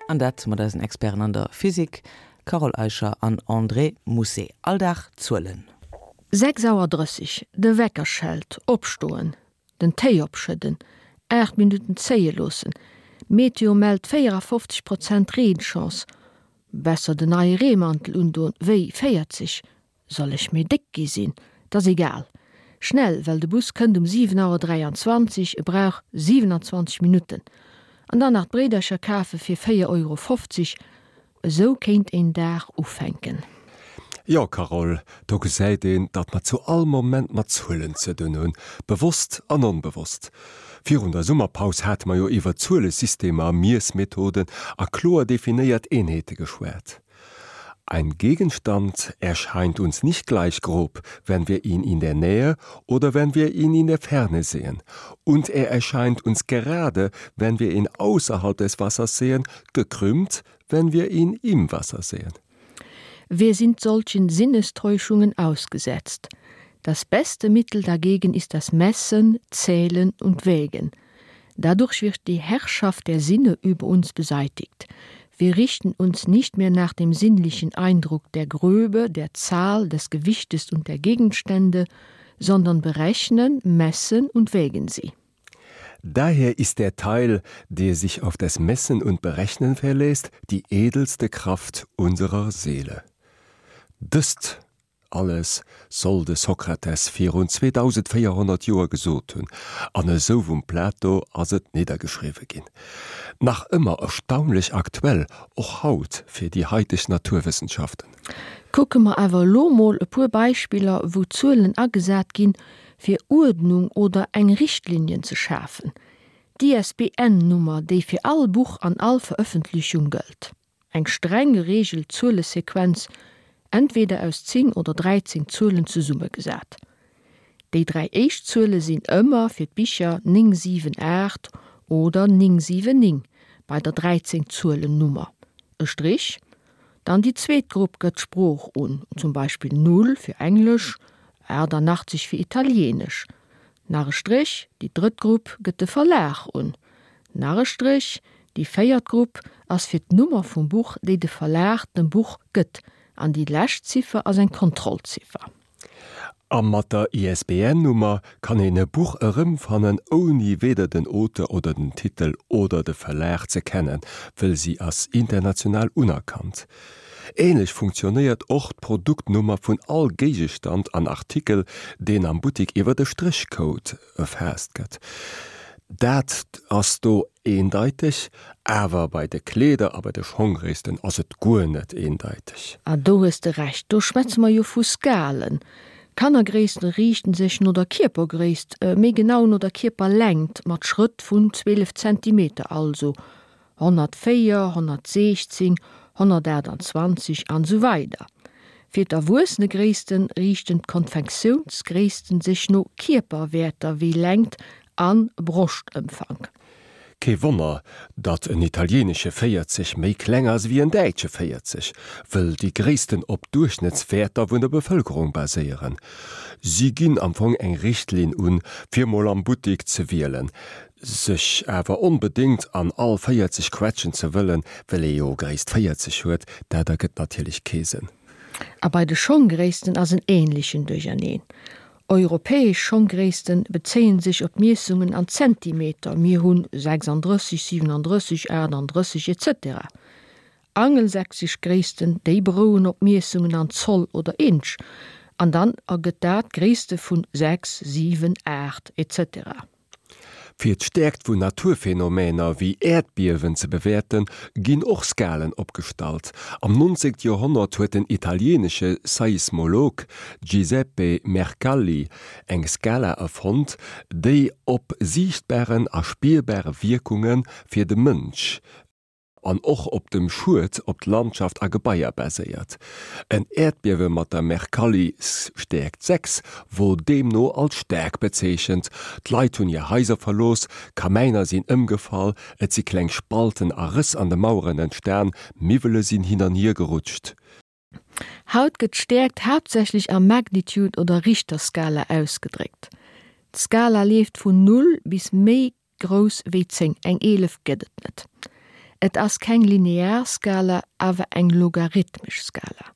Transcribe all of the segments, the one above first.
An dat mat eisen Experten an der Physik, Carole Eicher an André Mousset. All Dag Zuelen. 6 Auer 30, De Wecker schellt, opstoen, den Téi opschëdden, 8 Minutten zéie loossen, Meteo mellt 54 Prozent Reenchance, besser den neie Reemantel undoen wéi 40, Soll ech méi déck gi sinn? 't ass egal. Schnell, well de Bus kënnt um 7 Auer 23, e brauch 27 Minutten. An dann nach d'Bréidercher kafe fir 4 Euro 50. Esou kéint een Dag ufänken. Jo, Carole, do gesäit een, datt mer zu all Moment mat Zuelen ze dunn hunn, bewosst an onbewosst. Virun der Summerpaus hate mer jo iwwer Zuelesystemer, Miessmethoden a kloer definéiert Eenheete geschwat. Ein Gegenstand erscheint uns nicht gleich grob, wenn wir ihn in der Nähe oder wenn wir ihn in der Ferne sehen. Und er erscheint uns gerade, wenn wir ihn außerhalb des Wassers sehen, gekrümmt, wenn wir ihn im Wasser sehen. Wir sind solchen Sinnestäuschungen ausgesetzt. Das beste Mittel dagegen ist das Messen, Zählen und Wägen. Dadurch wird die Herrschaft der Sinne über uns beseitigt. Wir richten uns nicht mehr nach dem sinnlichen Eindruck der Gröbe, der Zahl, des Gewichtes und der Gegenstände, sondern berechnen, messen und wägen sie. Daher ist der Teil, der sich auf das Messen und Berechnen verlässt, die edelste Kraft unserer Seele. Dëst Alles soll de Sokrates virun 2400 Joer gesot hunn, an esou vum Plato ass et niddergeschriwwe ginn. Nach ëmmer erstaunlech aktuell, och haut fir déi haiteg Naturwëssenschaften. Kucke mer awer elo mol e puer Beispiller, wou Zuelen agesat ginn, fir Uerdnung oder eng Richtlinien ze schafen. D'ISBN-Nummer, déi fir all Buch an all Verëffentlechung gëllt. Eng streng gereegelt Zuelesequenz, entweder aus 10 oder 13 Zuelen zesummegesat. Déi 3 éischt Zuele sinn ëmmer fir d'Bicher 9 7 8 oder 9 7 9 bei der 13 Zuelennummer e Strich. Dann déi zweet Grupp gëtt d'Sprooch un, zum Beispill 0 fir Englesch, 88 fir Italienesch. Nach e Stréch, déi drëtt Grupp gëtt de Verlag un. Nach e Stréch, déi véiert Grupp ass fir d'Nummer vum Buch, déi de Verlag dem Buch gëtt, an déi lescht Ziffer ass eng Kontrollziffer. A mat der ISBN-Nummer kann een e Buch erëmfannen, ouni weder den Auteur oder den Titel oder de Verlag ze kennen, wëll si ass international unerkannt. Ähnlech funktionéiert och d'Produktnummer vun all Géigestand an Artikel, deen am Buttik iwwer e Stréchcode erfaasst gëtt. Dat ass do eendeiteg, awer bei de Kleeder a bei de Schonggréissten ass et guer net eendeiteg. Ah, do hues de Recht, do schwätze mer jo vu Skalen. Kannergréissten riichten sech no der Kierpergréisst, méi genau no der Kierperlängt, mat Schrëtt vun 12 Zentimeter also 104, 116, 128 an esou weider Fir d'Erwuessenegréissten riichten d'Konfektiounsgréissten sech no Kierperwäerter wéi Längt an Broschtëmfank. Kee Wonner, datt en italienesche 40 méi kleng ass ewéi en däitsche 40, wëll déi Gréissten op Duerchschnëttswäerter vun der Bevëlkerung baséieren. Si ginn am Fong eng Richtlinn un, fir mol am Buttik ze wielen. Sech awer onbedéngt an all 40 quetschen ze wëllen, well ee jo Gréisst 40 huet, dat ergëtt natierlech kee Sënn. A bei de Schonggréissten ass en ähnlechen Duercherneen. Europäesch Schonggréissten bezéien sech op Miessungen an Zentimeter, mir hunn 36, 37, 38, etc. Angelsächsesch Gréissten, déi berouen op Miessungen an Zoll oder Inch, an dann ergëtt dat Gréisste vun 6, 7, 8, etc. Fir d'Stäerkt vun Naturphenomener wéi Äerdbiewen ze bewäerten, ginn och Skalen opgestallt. Am 19. Joerhonnert huet den italieenesche Seismolog Giuseppe Mercalli eng Skala erfonnt, déi op siichtbaren a spierbare Wierkunge fir de Mënsch an och op dem Schued op d'Landschaft a Gebaier baséiert. En Äerdbiewe mat der Mercalli-Stäerkt 6 wor deemno als staark bezeechent. D'Leit hunn hir Haiser verlooss, Kamäiner sinn ëmgefall, et si kleng Spalten a Rëss an de Maueren entstan, Miwwele sinn hin an hier gerutscht. Haut gëtt d'Stäerkt haaptsächlech a Magnitude oder Richterskala ausgedréckt. D'Skala leeft vun Null bis méi grouss wéi 10, eng 11 gëtt et net. Et ass keng linear Skala, awer eng logarithmesch Skala.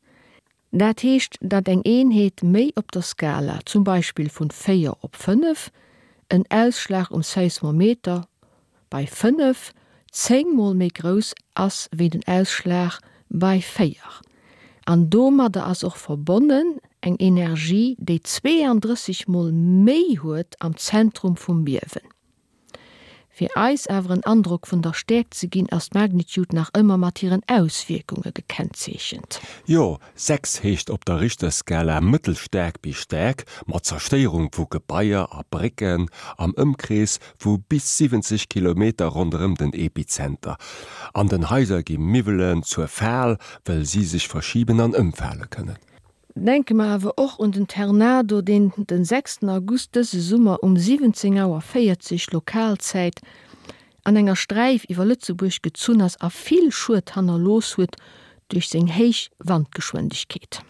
Dat heescht, datt eng Eenheet méi op der Skala, zum Beispill vun 4 op 5, en Ausschlag um Seismometer bei 5, 10 mol méi grouss ass wéi den Ausschlag bei 4. An domadder ass och verbonnen eng Energie, déi 32 mol méi huet am Zentrum vum Biewen. Fir eis awer en Androck vun der Stäerkt ze ginn, ass d'Magnitude nach ëmmer mat hiren Auswierkunge gekennzeechent. Jo, 6 heescht op der Richterskala mëttelstaark bis staark, mat Zerstéierung vu Gebaier a Brécken am Ëmkrees vu bis 70 Kilometer ronderëm den Epizenter. An den Haiser gi Miwwelen zur Fal, wëll si sech verschiben an ëmfale kënnen. Denke mer awer och un den Ternado, deen den sechsten August dëse Summer um 17 Auer 40 Lokalzäit an enger Sträif iwwer Lëtzebuerg gezunn ass a vill Schued hannerlooss huet duerch seng héich Wandgeschwindegkeet.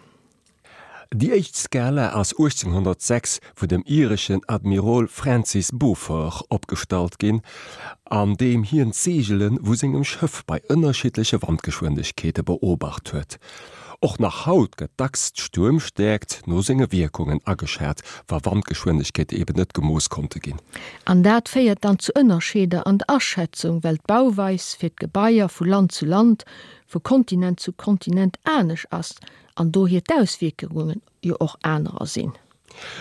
Déi éischt Skala ass 1806 vun dem ireschen Admirol Francis Beaufort opgestallt ginn, an deem hien d'Seegele vu sengem Schëff bei ënnerschiddleche Wandgeschwindegkeete beobacht huet. Och nach haut gëtt dacks d'Stuermstäerkt no senge Wierkungen ageschat, wa Wandgeschwindegkeete eben net gemooss konnte ginn. An dat féiert dann zu Ënnerscheeder an der Aschätzung, well d'Bauweis fir d'Gebaier vu Land zu Land, vu Kontinent zu Kontinent anesch ass an dohier d'Auswierkungen jo och anerer sinn.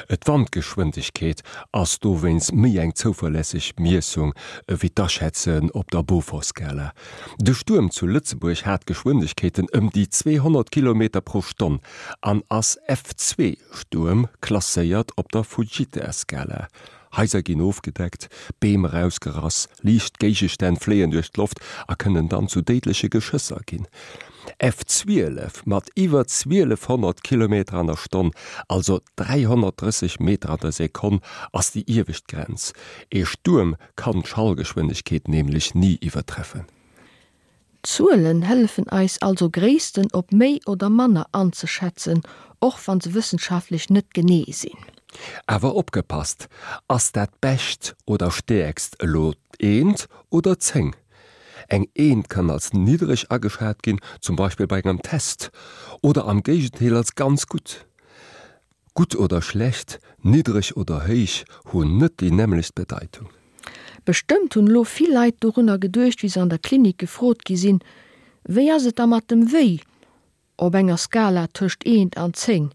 D'Wandgeschwindegkeet ass dowéinst méi eng zouverlässeg Miessung ewéi d'Aschätzen op der Beaufort-Skala. De Stuerm zu Lëtzebuerg hat Geschwindegkeeten ëm déi 200 Kilometer pro Stonn an ass F2-Stuerm klasséiert op der Fujita-Skala. Haiser ginn ofgedeckt, Beem erausgerass, liicht Géigestänn fléien duerch d'Loft a kënnen dann zu déidleche Geschësser ginn. F12 mat iwwer 1200 Kilometer an der Stonn, also 330 Meter an der Sekonn, ass déi iewescht Grenz. Ee Stuerm kann d'Schallgeschwindegkeet nämlech ni iwwertreffen. Zuelen hëllefen eis also Gréissten op méi oder manner anzeschätzen, och wann se wëssenschaftlech net genee sinn. Awer opgepasst, Ass dat Bescht oder Stäerkst elo d'Eent oder d'Zéng? Eng Eent kann als niddreg ageschat ginn, zum Beispill bei engem Test, oder am Géigendeel als ganz gutt. Gutt oder schlecht, niddreg oder héich hunn net déi nämmlecht Bedeitung. Bestëmmt hunn elo vill Leit dorunner geduecht, wéi se an der Klinik gefrot gi sinn, Wéi ass et da mat dem Wéi op enger Skala tëscht eent an 10?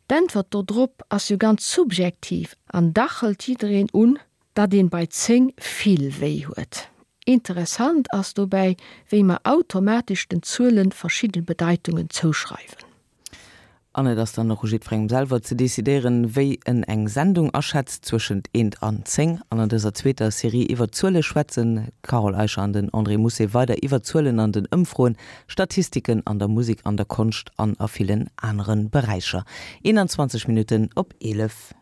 D'Äntwert dodrop ass jo ganz subjektiv an dach hëlt jiddereen un, datt een bei 10 vill wéi huet. Interessant ass dobäi, wéi mer automatesch den Zuelen verschidden Bedeitungen zouschreiwen. An et ass dann och u jiddwerengem selwer ze decidéieren, wéi en eng Sendung aschätzt, zwëschent eent an 10. An an dëser zweeter Serie iwwer Zuele schwätzen d'Carole Eicher an den André Mousset weider iwwer Zuelen an den Ëmfroen, Statistiken an der Musek, an der Konscht an a villen anere Beräicher. 21 Minutten op 11.